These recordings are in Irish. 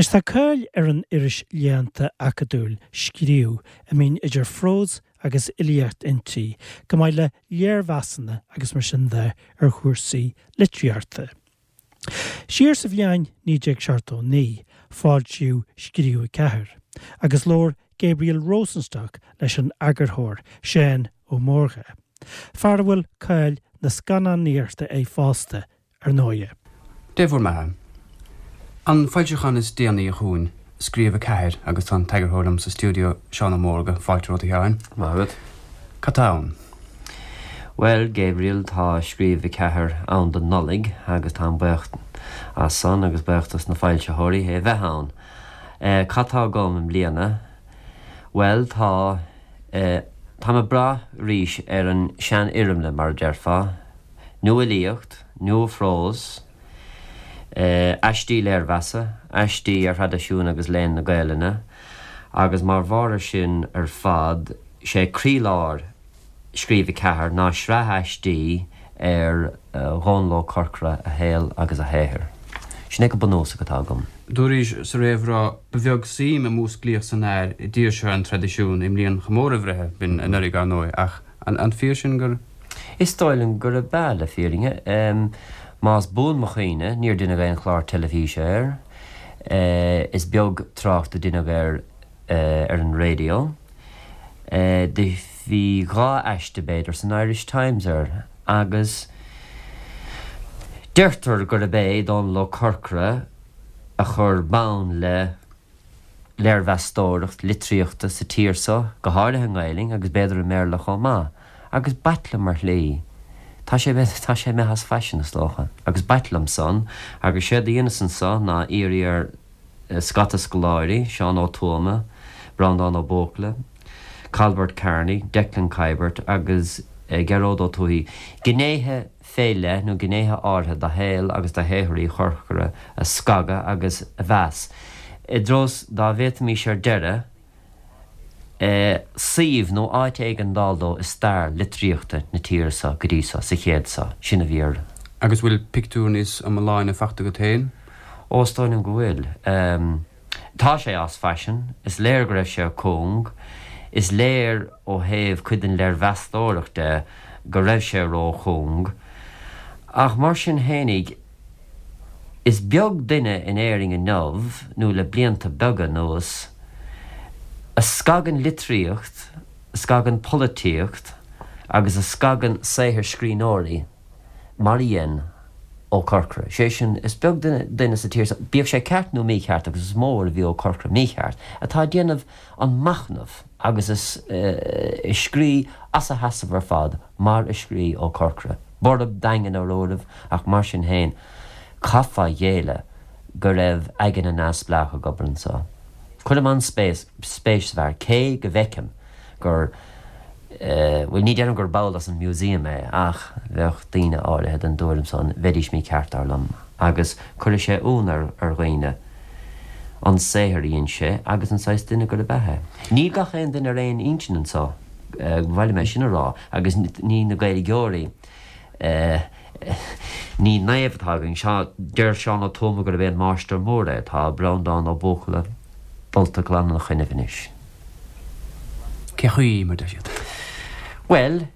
Anois tá cáil ar an iris léannta acadúil, Scríobh, a mbíonn idir phrós agus fhilíocht inti, chomh maith le léirmheasanna agus mar sin de ar chúrsaí litríochta. Siar sa bhliain 1979, foilsíodh Scríobh 4, agus labhair Gabriel Rosenstock leis an eagarthóir, Seán Ó Mórdha, fear a bhfuil cáil na scannánaíochta air fosta, ar ndóighe. Dé bhur mbeatha. An foilseachán is déanaí chugainn, Scríobh 4, agus tá an t-eagarthóir liom sa stiúideo, Seán Ó Mórdha. Fáilte romhat, a Sheáin. Maith agat. Cad tá ann? Bhuel, Gabriel, tá Scríobh 4 ann don Nollaig agus táim buíoch as san agus buíoch dos na foilsitheoirí é bheith ann. Cad tá agam i mbliana? Bhuel, tá, táim ag brath arís ar an seanfhoirmle, mar a déarfá. Nuafhilíocht, nuaphrós, aistí léirmheasa, aistí ar thraidisiún agus léann na Gaelainne, agus mar bharr ar sin ar fad, sé croílár Scríobh 4 ná sraith aistí ar Dhónall Ó Corcora, a shaol agus a shaothar. Sin é go bunúsach atá agam. Dúraís sa réamhrá, Ba bheag suim a músclaíodh san fhear i dtír seo an traidisiúin i mbliain chomóradh a bhreithe, b'in anuraidh, ar ndóigh, ach an fíor sin gur. Is dóigh liom gurb ea, le fírinne. Más buan mo chuimhne, níor deineadh aon chlár teilifíse air. Is beag trácht a deineadh air ar an raidió. Do bhí dha aiste, b'fhéidir, san Irish Times air agus deirtear gurb é Dónall Ó Corcora a chuir bonn le léirmheastóireacht litríochta sa tír so, go háirithe i nGaelainn agus b'fhéidir i mBéarla chomh maith. Agus b'ait liom ar shlí. Tá sé, tá sé imithe as faisean, is dócha. Agus b'ait liom san. Agus séard a dheineas anso ná iarraidh ar scata scoláirí, Seán Ó Tuama, Breandán Ó Buachalla, Cailbert Kearney, Declan Kiberd agus Gearóid Ó Tuathaigh, gnéithe fé leith nó gnéithe áirithe de shaol agus de shaothar Uí Chorcora a scagadh agus a mheas, i dtreo 's dá bhféadfaimís ar deireadh suíomh nó áit éigin d'fháil dó i stair litríochta na tíre so go dtí so, sa chéad so. Sin a bhí ar. Agus bhfuil pictiúr níos iomláine fachta agat féin? Ó, is dóigh liom go bhfuil. Tá sé as faisean. Is léir go raibh sé cúng. Is léir ó thaobh cuid den léirmheastóireacht de go raibh sé ró-chúng. Ach mar sin fhéinig, is beag duine in Éirinn inniu, nó le blianta beaga anuas, a scagann litríocht, a scagann polaitíocht agus a scagann saothar scríbhneoirí mar a dhein Ó Corcora. Sé sin, is beag duine sa tír seo, bíodh sé ceart nó mícheart, agus is mó uair a bhí Ó Corcora mícheart, atá ag déanamh an machnamh agus ag scrí as a sheasamh ar fad mar a scrí Ó Corcora. Borb daingean ar uairibh ach mar sin féin, caithfeá a ghéilleadh go raibh aigne neamhspleách ag obair anso. Cuirim an-spéis sa bhfear, cé go bhfeicim gur, bhuel, ní deirim gur ball as an museum é, ach bheadh daoine áirithe den dtuairim san, bheidís mícheart, dar liom, agus cuirfidh sé ionadh ar dhaoine an saothar a dhein sé agus an saghas duine gurb ea é. Níl gach aon duine ar aon intinn anso, ba mhaith liom é sin a rá, agus ní na Gaeilgeoirí, ní naomh atá againn, deir Seán Ó Tuama gurb é an máistir mór é, tá Breandán Ó Buachalla dulta glan ina choinnibh anois. Cé chaoi mar deir siad? Bhuel,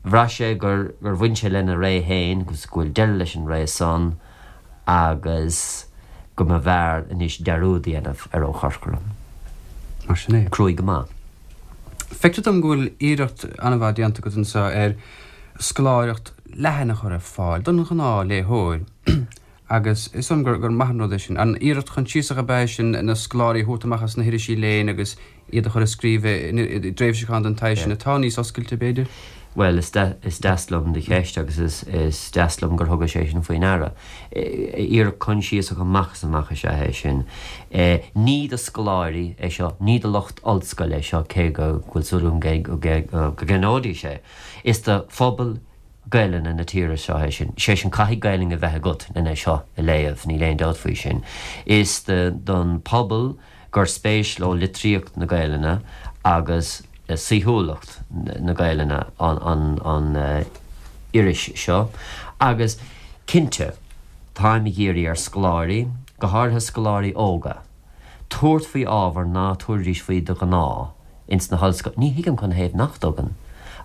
bhraith sé gur gur bhain sé lena ré féin agus go bhfuil deireadh leis an ré san agus go mb'fhearr anois dearúd a dhéanamh ar Ó Corcora. Mar sin é. Cruaidh go maith. Feictear dom go bhfuil iarracht an-mhaith déanta agat anseo ar scoláireacht leathan a chur ar fáil don ghnáthléitheoir. Agus is dóigh liom gur maith an rud é sin. An iarracht choinsiasach ab ea é sin na scoláirí a thabhairt amach as na hirisí léinn agus iad a chur ag scríobh i dtréimhseacháin den tsaghas sin atá níos oscailte, b'fhéidir? Bhuel, is deas liom do cheist agus is deas liom gur thugais é sin faoi ndeara. Iarracht choinsiasach amach is amach is ea é sin. Ní do scoláirí é seo, ní do lucht ollscoile é seo, cé go bhfuil súil agam go gceannóidís é. Is do phobal Gaelainne na tíre seo é sin. Sé sin, caithfidh Gaelainn a bheith agat len é seo a léamh, níl aon dabht faoi sin. Is don pobal gur spéis leo litríocht na Gaelainne agus saoithiúlacht na Gaelainne an iris seo. Agus cinnte, táim ag iarraidh ar scoláirí. go háirithe scoláirí óga, tabhairt faoi ábhar ná tabharfaidís faoi de ghnáth ins na hollscoileanna. Ní thuigim canathaobh nach dtugann,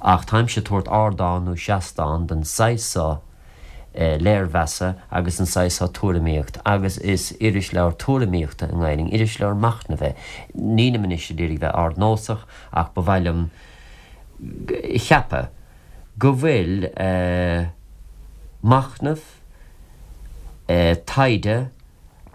ach táimse ag tabhairt ardán nó seastán don saghas so léirmheasa agus an saghas so tuairimíocht agus is irisleabhar tuairimíochta i nGaelainn, irisleabhar machnaimh é. Nílim anois ag iarraidh bheith ardnósach ach ba mhaith liom a cheapadh go bhfuil machnamh, taighde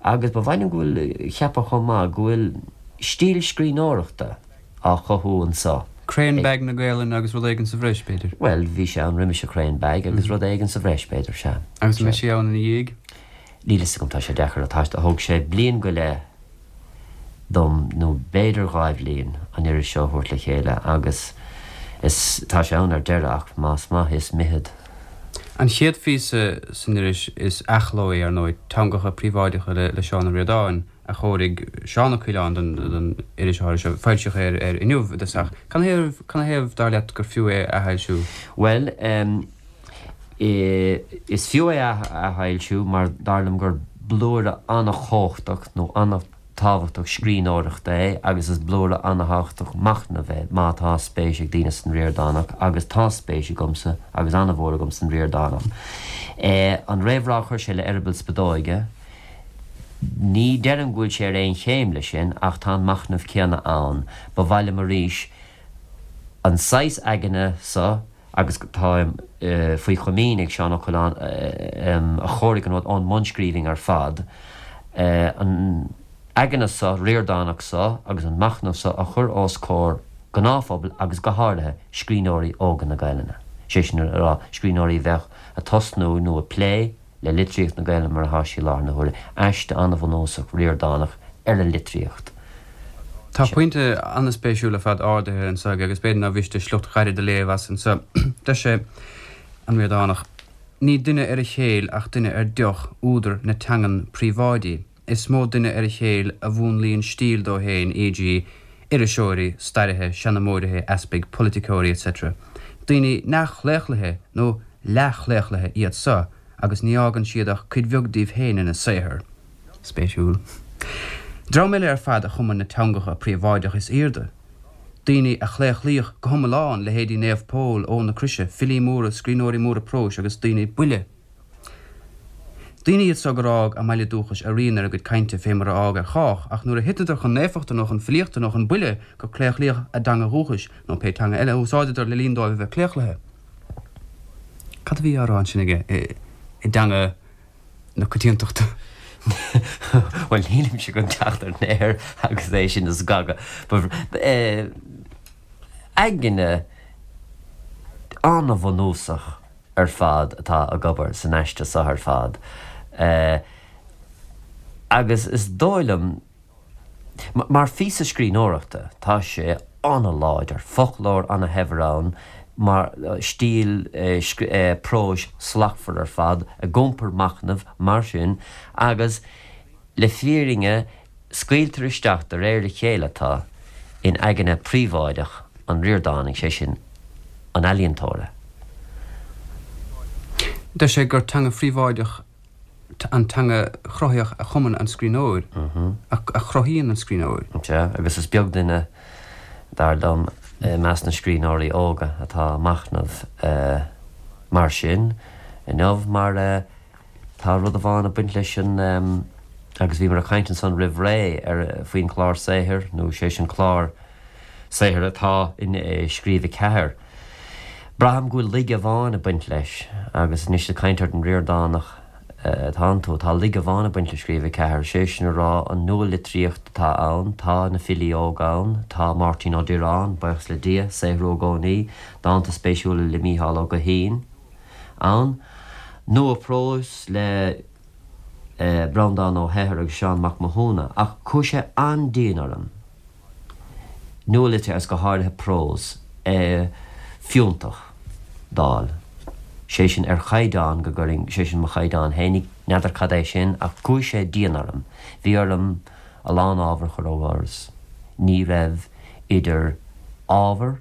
agus ba mhaith liom go bhfuil, a cheapadh chomh maith, go bhfuil stíl scríbhneoireachta á chothú anso. Crainn Bag na Gaelainne agus rud éigin sa bhreis, b'fhéidir. Bhuel, bhí sé ann roimis an Crainn Bag agus rud éigin sa bhreis, b'fhéidir, sea. Agus an mbeidh sé ann ina dhiaidh? Níl fhios agam, tá sé deacair a thomhas. Thóg sé bliain go leith dom, nó b'fhéidir dhá bhliain, an iris seo a thabhairt le chéile agus is, tá sé ann ar deireadh ach más maith is mithid. An chéad phíosa san iris is athchló é, ar ndóigh, Teangacha Príobháideacha le Seán Ó Ríordáin. a chóirigh Seán Ó Coileáin don iris áirithe seo. Foilsíodh é ar Inniu i dtosach. Canathaobh, dar leat, gur fiú é a athfhoilsiú? Bhuel, is fiú é a athfhoilsiú mar dar liom gur blúire an-chumhachtach nó an-tábhachtach scríbhneoireachta é agus is blúire an-tábhachtach machnaimh é má tá spéis ag daoine san Ríordánach agus tá spéis agamsa agus an-mhór agam san Ríordánach. An réamhrá a chuir sé le Eireaball Spideoige, Ní deirim go bhfuil sé ar aon chéim leis sin ach tá an machnamh céanna ann. Ba mhaith liom arís an saghas aigne so, agus táim faoi chomaoin ag Seán Ó Coileáin a chóirigh an rud ón mbunscríbhinn ar fad, an aigne so, Ríordánach so agus an machnamh so a chur os comhair gnáthphobail agus go háirithe scríbhneoirí óga na Gaelainne, sé sin a rá, scríbhneoirí a bheadh ag tosnú nó ag plé le litríocht na Gaelainne mar atá sí i láthair na huaire, aiste an-bhunúsach Ríordánach ar an litríocht. Tá pointe an-spéisiúil ar fad ardaithe anseo aige agus b'fhéidir nár mhiste sliocht ghairid a léamh as anseo. Deir sé, an Ríordánach, Ní duine ar a chéill ach duine ar deoch údar na teangan príobháidí. Is mó duine ar a chéill a mhúnlaíonn stíl dó féin, e.g. iriseoirí, stairithe, seanmóirithe, easpaig, polaiticeoirí, etc. Daoine neamhchlaochlaithe nó leathchlaochlaithe iad so agus ní fhágann siad ach cuid bheag díobh féin ina saothar. Spéisiúil. Dream eile ar fad a chumann na teangacha príobháideach is aoirde. Daoine a claochlaíodh go hiomlán, leithéidí Naomh Pól, Eoin na Croise, filí móra, scríbhneoirí móra próis agus daoine buile. Daoine iad so gur fhág a mbaile dúchais a rian ar a gcuid cainte fé mar a fhág ar chách, ach nuair a thiteadar chun naofachta nó chun filíochta nó chun buile gur claochlaíodh a dteanga dhúchais nó pé teanga eile a úsáideadar le linn dóibh a bheith claochlaithe. Cad a bhí á rá ansin aige i dteanga na coitiantachta? Bhuel, nílimse chun teacht ar an aer agus é sin a scagadh. Aigne an-bhunúsach. ar fad atá ag obair san aiste seo ar fad agus is dóigh liom, mar phíosa scríbhneoireachta, tá sé an-láidir, foclóir an-shaibhir ann, mar stíl próis slachtmhar ar fad, ag iompar machnaimh mar sin agus le fírinne Scaoiltear isteach de réir a chéile tú in aigne phríobháideach an Ríordánaigh, sé sin, an ealaíontóra. Deir sé gur teanga phríobháideach an teanga chruthaíoch a chumann an scríbhneoir, a chruthaíonn an scríbhneoir. Sea, agus is beag duine, dar liom, i measc na scríbhneoirí óga atá ag machnamh mar sin inniu, mar. Tá rud amháin ag baint leis an, agus bhíomar ag caint ansan roimh ré ar, faoin chlár saothair, nó sé sin clár saothair atá in Scríobh 4. Braithim go bhfuil laige amháin ag baint leis, agus anois ag caint ar an Ríordánach atánn tú, tá laige amháin ag baint le Scríobh 4, sé sin a rá an nua-litríocht atá ann, tá na filí óga ann, tá Máirtín Ó Direáin, buíochas le Dia, saothrú i gcónaí, dánta spéisiúla le Mícheál Ó Guithín. ann. Nua-phrós le Breandán Ó hEithir agus Seán Mac Mathúna, ach chuaigh sé an-dian orm nualitríocht agus go háirithe prós fiúntach d'fháil, sé sin ar chaighdeán go gcuirfinn, sé sin mo chaighdeán fhéinig, n'fheadar cad é sin, ach chuaigh sé dian orm. Bhí orm a lán ábhar a chur ó dhoras. Ní raibh idir ábhar,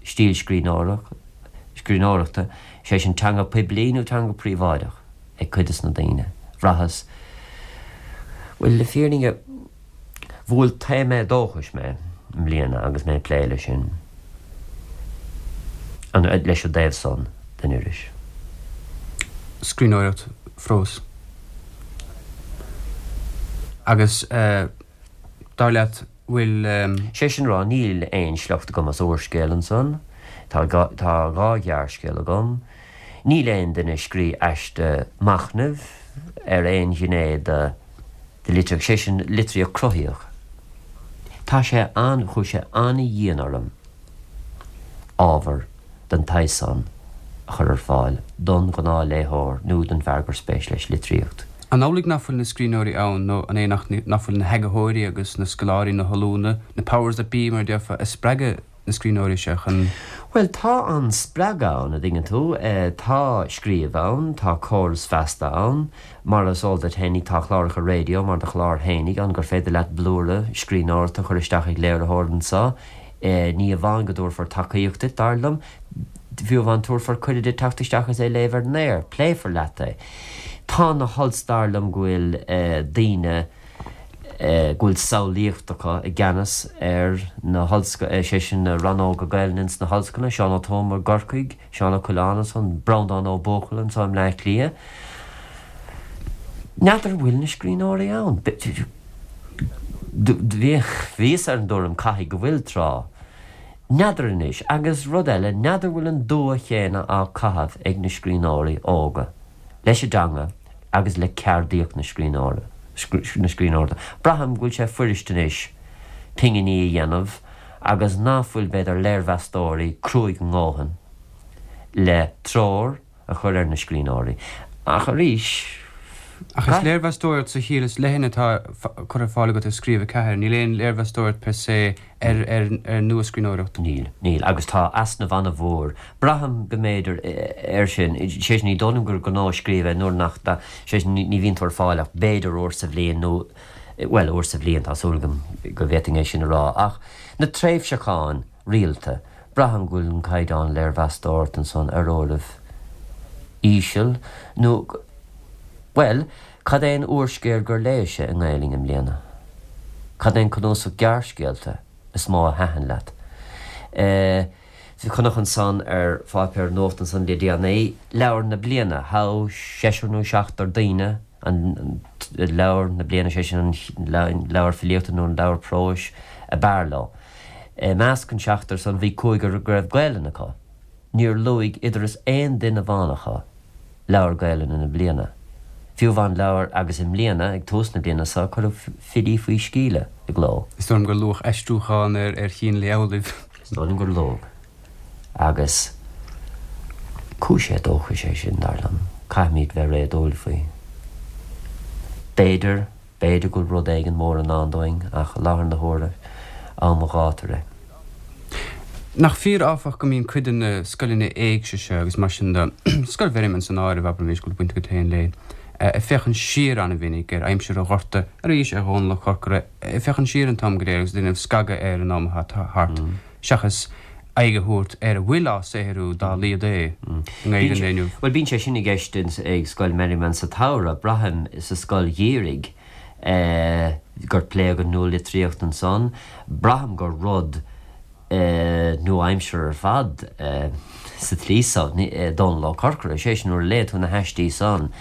stíl scríbhneoireachta, sé sin teanga poiblí nó teanga príobháideach ag cuid des na daoine. Bhraitheas. Bhuel, le fírinne, bhuail taom éadóchais mé i mbliana agus mé ag plé leis sin, leis an dtaobh san den iris. Scríbhneoireacht phróis. Agus dar leat, bhfuil. Sé sin a rá, níl aon sliocht agam as úrscéal ansan. Tá tá dha ghearrscéal agam. Níl aon duine ag scrí aiste machnaimh ar aon ghné de de litríocht, sé sin litríocht cruthaíoch. Tá sé an, chuaigh sé an-dhian orm ábhar den tsaghas san a chur ar fáil don ghnáthléitheoir nó don bhfear gur spéis leis litríocht. An amhlaidh nach bhfuil na scríbhneoirí ann nó an é nach bhfuil na heagarthóirí agus na scoláirí, na hollúna, na powers that be mar a déarfá, ag spreagadh na scríbhneoirí seo chun. Bhuel, tá an spreagadh ann, a dtuigeann tú. Tá scríobh ann, tá córas feasta ann. Mar is eol duit fhéinig, tá cláracha raidió mar do chlár fhéinig ann gur féidir leat blúire scríbhneoireachta a chur isteach ag léiritheoir anseo. Ní amháin go dtabharfar tacaíocht duit, dar liom, fiú amháin tabharfar cuireadh duit teacht isteach is é a léamh ar an aer. Pléifear leat é. Tá na hols-, dar liom go bhfuil daoine go bhfuil samhlaíocht acu i gceannas ar na hollscoileanna, sé sin na rannóga Gaelainne ins na hollscoileanna, Seán Ó Tuama i gCorcaigh, Seán Ó Coileáin ansan, Breandán Ó Buachalla anseo i mBleá Cliath. N'fheadar an bhfuil na scríbhneoirí ann. Bhíos ar an dtuairim caithfidh go bhfuil, tráth. N'fheadar anois. Agus rud eile, n'fheadar bhfuil an dua chéanna á caitheamh ag na scríbhneoirí óga leis an dteanga agus le ceardaíocht na scríbhneoireachta. Braithim go bhfuil sé fuirist anois pinginí a dhéanamh agus ná fuil b'fhéidir léirmheastóirí cruaidh a ndóthain le treoir a chur ar na scríbhneoirí. Ach arís, Ach is léirmheastóireacht sa chiall is leithne atá curtha ar fáil agat i Scríobh 4, níl aon léirmheastóireacht per se ar ar nua-scríbhneoireacht. Níl, níl. Agus tá easnamh an-mhór, braithim go mb'fhéidir, air sin. Sé sin, ní dóigh liom gur gnó scríobh é nuair nach, sé sin, ní bhíonn tú ar fáil ach b'fhéidir uair sa bhliain nó, bhuel, uair sa bhliain, tá súil agam go bhféadfainn é sin a rá. Ach na tréimhseacháin rialta, Braithim go bhfuil an caighdeán léirmheastóireachta ansan ar uairibh íseal, nó, bhuel, cad é an úrscéal gur léis-se i nGaelainn i mbliana? Cad é an cnuasach gearrscéalta is mó a thaitin leat? Eh, chonac ansan ar pháipéar nuachta ansan le déanaí, leabhar na bliana, thogh seisear nó seachtar daoine an leabhar na bliana, sé sin an leabhar filíochta nó an leabhar próis a b'fhearr leo. I measc an seachtar san bhí cúigear go raibh Gaelainn acu. Níor luaigh idir is aon duine amháin acu leabhar Gaelainne na bliana. Fiú amháin leabhar agus i mbliana, ag tús na bliana seo, cuireadh Filí Faoi Sceíle i gcló. Is dóigh liom gur luadh aistriúchán ar Chín Amhlaoibh. Is dóigh liom gur luadh. Agus cúis éadóchais é sin, dar liom. Caithfimid bheith réadúil faoi. B'fhéidir. B'fhéidir go bhfuil rud éigin mór i ndán dúinn, ach i láthair na huaire, am an ghátair é. Nach fíor, áfach, go mbíonn cuid de na scoileanna éigse seo agus mar sin de, Scoil Mherriman san áireamh, abraimis, go bhfuil baint agat féin léi, ag féachaint siar an-mhinic ar aimsir an Ghorta, arís ar Dhónall Ó Corcora, ag féachaint siar an t-am go léir agus ag déanamh scagadh ar an am atá thart, seachas aghaidh a thabhairt ar a bhfuil á saothrú dá laghad é i nGaeilge an lae inniu. Bhuel, bíonn sé sin i gceist ag Scoil Merriman sa tsamhradh, braithim, sa scoil gheimhridh, gur pléadh an nualitríocht ansan. Braithim gur rud nua-aimseartha ar fad sa tslí so, Dónall Ó Corcora, sé sin, nuair a léigh tú na haistí san,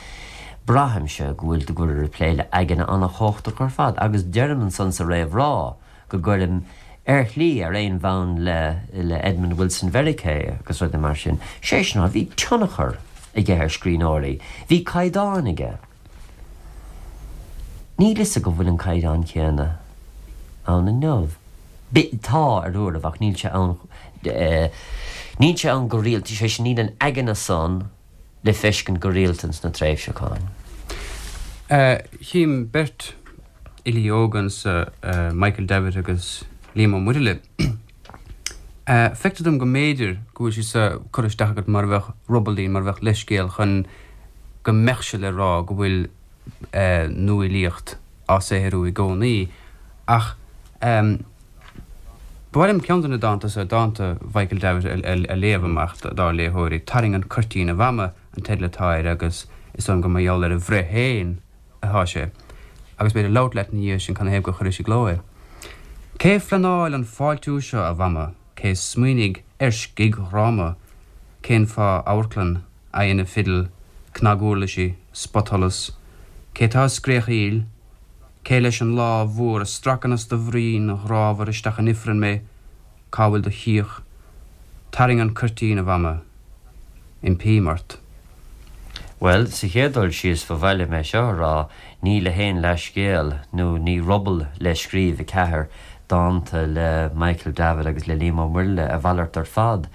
braithimse go bhfuil, go bhfuil ag plé le aigne an-chumhachtach ar fad agus deirim ansan sa réamhrá, go gcuirim, ar shlí, ar aon bhonn le le Edmund Wilson Mheiriceá agus rudaí mar sin. Sé sin, bhí tionchar aige ar scríbhneoirí. Bhí caighdeán aige. Níl fhios agam bhfuil an caighdeán céanna ann inniu. Tá, ar uairibh, ach níl sé ann, níl sé ann go rialta, sé sin, níl an aigne san le feiscint go rialta ins na tréimhseacháin. Chím beirt fhilí óga anso, Michael Davitt agus Liam Ó Muirthile. Feictear dom go mb'fhéidir go bhfuil siad seo curtha isteach agat mar a bheadh rubaillín, mar a bheadh leithscéal chun go mbeadh sé le rá go bhfuil nuafhilíocht á saothrú i gcónaí. Ach ba mhaith liom ceann de na dánta seo, dánta Mhichael Davitt, a léamh amach dár léitheoirí. Tarraing an Cuirtín, a Mhama an teideal atá air agus is dóigh liom gur mar gheall ar a bhreith féin atá sé. Agus b'fhéidir labhairt leat ina dhiaidh sin canathaobh gur chuiris i gcló é. Cé phleanáil an fáiltiú seo, a Mhama? Cé smaoinigh ar scigdhráma? Cén fáth amharclann, aghaidheanna fidil, cnaguirlisí, spotsholas? Cé tá ag scréachaíl? Cé leis an lámh mhór a stracann as do bhroinn ghrámhar isteach in ifreann mé? Cá bhfuil do shíoth? Tarraing an cuirtín, a Mhama. Impím ort. Bhuel, sa chéad dul síos, ba mhaith liom é seo a rá, ní le haon leathscéal, nó ní ruball le Scríobh 4, dánta le Michael Davitt agus le Liam Ó Muirthile, a mhalairt ar fad.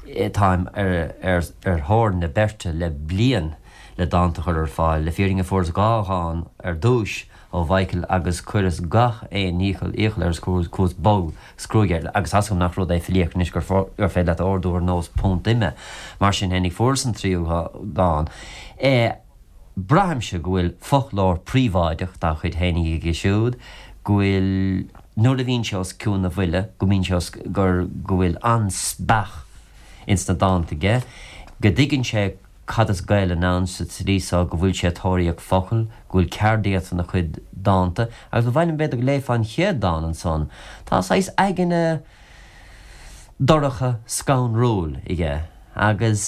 Táim ar thóir na beirte le bliain le dánta a chur ar fáil. Le fírinne fuaireas 2 dhán ar dtúis ó Mhichael agus chuireas gach aon iachall iachall air is chuas bog 's cruaidh air, agus tá's agam nach rud é filíocht anois gur féidir leat a ordú ar nós punt ime. Mar sin fhéinig fuaireas an tríú dán. Braithimse go bhfuil foclóir príobháideach dá chuid fhéinig aige siúd, go bhfuil, nuair a bhíonn sé os cionn a bhuille, go mbíonn sé os, gur, go bhfuil an-speach ins na dánta aige, go dtuigeann sé cad is Gaelainn ann sa tslí so go bhfuil sé ag tóraíocht focal, go bhfuil ceardaíocht ina chuid dánta, agus ba mhaith liom b'fhéidir go léifeá an chéad dán ansan. Tá saghas aigne dorcha scanrúil aige, agus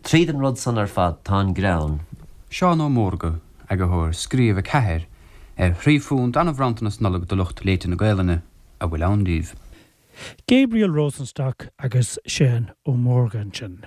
tríd an rud san ar fad tá an greann. Seán Ó Mórdha, Eagarthóir Scríobh 4, ar thrí phunt an-bhronntanas Nollag do lucht léite na Gaelainne, a bhfuil ann díobh. Gabriel Rosenstock agus Seán Ó Mórdha ansin.